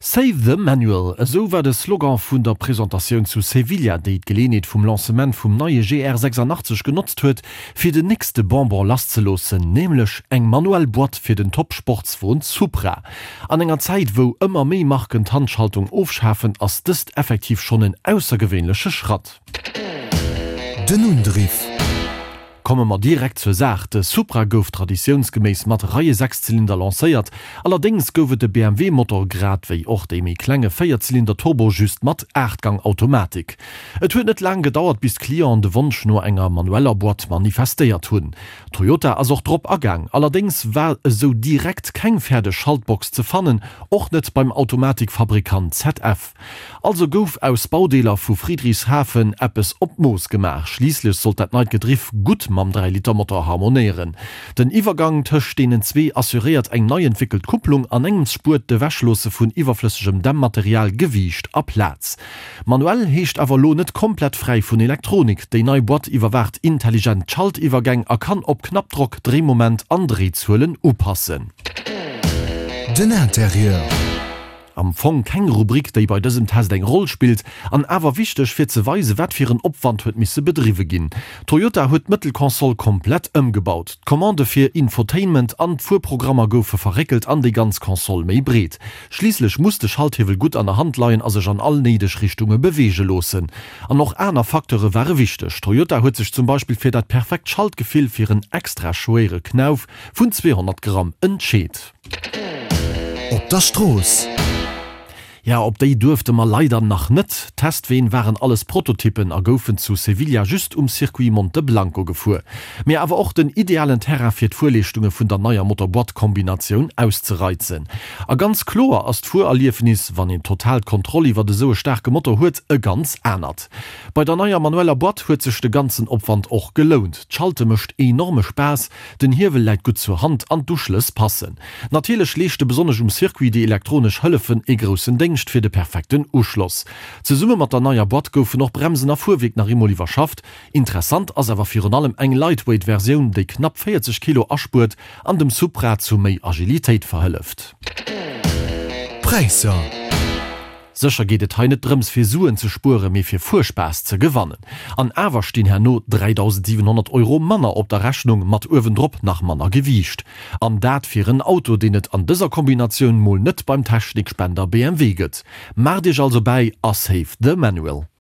Save the Manual, esou war de Slogan vun der Presentatioun zu Sevilla, déi d'Geleeënheet vum Lancement vum neie GR 86 genotzt huet, fir den nächste Bonbon lasszeloossen, nämlech eng manuell Boîte fir den Top-Sportswon Supra. An enger Zäit, wou ëmmer méi Marken d'Handschaltung ofschafen, ass dëst effektiv schonn en aussergewéinleche Schratt. Den Undriff. Komme mer direkt zur Saach, De Supra gouf traditiounsgeméiss mat Reie-Sechszylinder lancéiert. Allerdéngs gouf et de BMW-Motor grad wéi och dee méi klenge Véierzylinder-Turbo just mat Aachtgang-Automatik. Et huet net laang gedauert bis d'Clienten de Wonsch no enger manueller Boîte manifestéiert hunn. Toyota ass och drop agaang, allerdéngs war esou direkt keng fäerdeg Schaltbox ze fannen, och net beim Automatikfabrikant ZF. Also gouf aus Baudeeler vu Friedrichshafen eppes op d'Mooss gemaach. Schliisslech sollt dat neit Gedriff gutt mam 3 Liter Motor harmonéieren. Den Iwwergang tëscht deenen zwee assuréiert eng nei entwéckelt Kupplung, an engems spuert d'Ewechloosse vun iwwerflëssegem Dämmmaterial Gewiicht a Plaz. Manuell heescht awer elo net komplett fräi vun Elektronik. Déi nei Boîte iwwerwaacht intelligent d'Schaltiwwergäng a kann op Knappdrock Dréimoment an Dréizuelen upassen. Den Interieur. Am Fong keng Rubrik, déi bei dësem Test eng Roll spillt, an awer wichteg fir ze weisen, wat fir en Opwand huet misse bedriwwe ginn. Toyota huet d'Mëttelkonsol komplett ëmgebaut. D'Commandë fir Infotainment an d'Fuerprogrammer goufe verréckelt an déi ganz Konsol méi breet. Schliisslech muss de Schalthiewel gutt an der Hand leien a sech an all néideg Richtunge beweege loossen. An och aner Facteure ware wichteg. Toyota huet sech zum Beispill fir dat perfekt Schaltgefill fir en extra schwéiere Knauf vun 200 Gramm entscheet. Op der Strooss. Ja, op déi duerfte mer leider nach net. D'Testween waren alles Prototyppen a goufen zu Sevilla just um Circuit Monte Blanco gefuer. Mee awer och den idealen Terrain fir d'Fuerleeschtunge vun der neier Motor-Boîte-Kombinatioun auszereizen. A ganz kloer ass d'Fuererliefnis, wann een total d'Kontroll iwwert esou e staarke Motor huet, e ganz anert. Bei der neier manueller Boîte huet sech de ganzen Opwand och gelount. D'Schalte mécht enorme Spaass, Den Hiewel läit gutt zur Hand an d'Uschlëss passen. Natierlech leeschte besonnesch um Circuit déi elektronesch Hëllefen ee groussen Déngscht fir de perfekten Uschloss. Zesumme mat der neier Boîte goufen och Bremsen a Fuerwierk nach eemol iwwerschafft. Interessant ass awer virun allem eng Lightweight Versioun, déi knapp 40 Kilo aspuert an dem Supra zu méi Agilitéit verhëlleft. D'Präisser. Sécher geet et hei net drëms fir Suen ze spueren, mee fir Fuerspaass ze gewannen. An awer stinn herno 3.700 Euro manner op der Rechnung, mat uewendrop nach manner Gewiicht. An dat fir en Auto, deen et an dëser Kombinatioun mol net beim Technikspender BMW gëtt. Maacht iech also bäi a save the manual.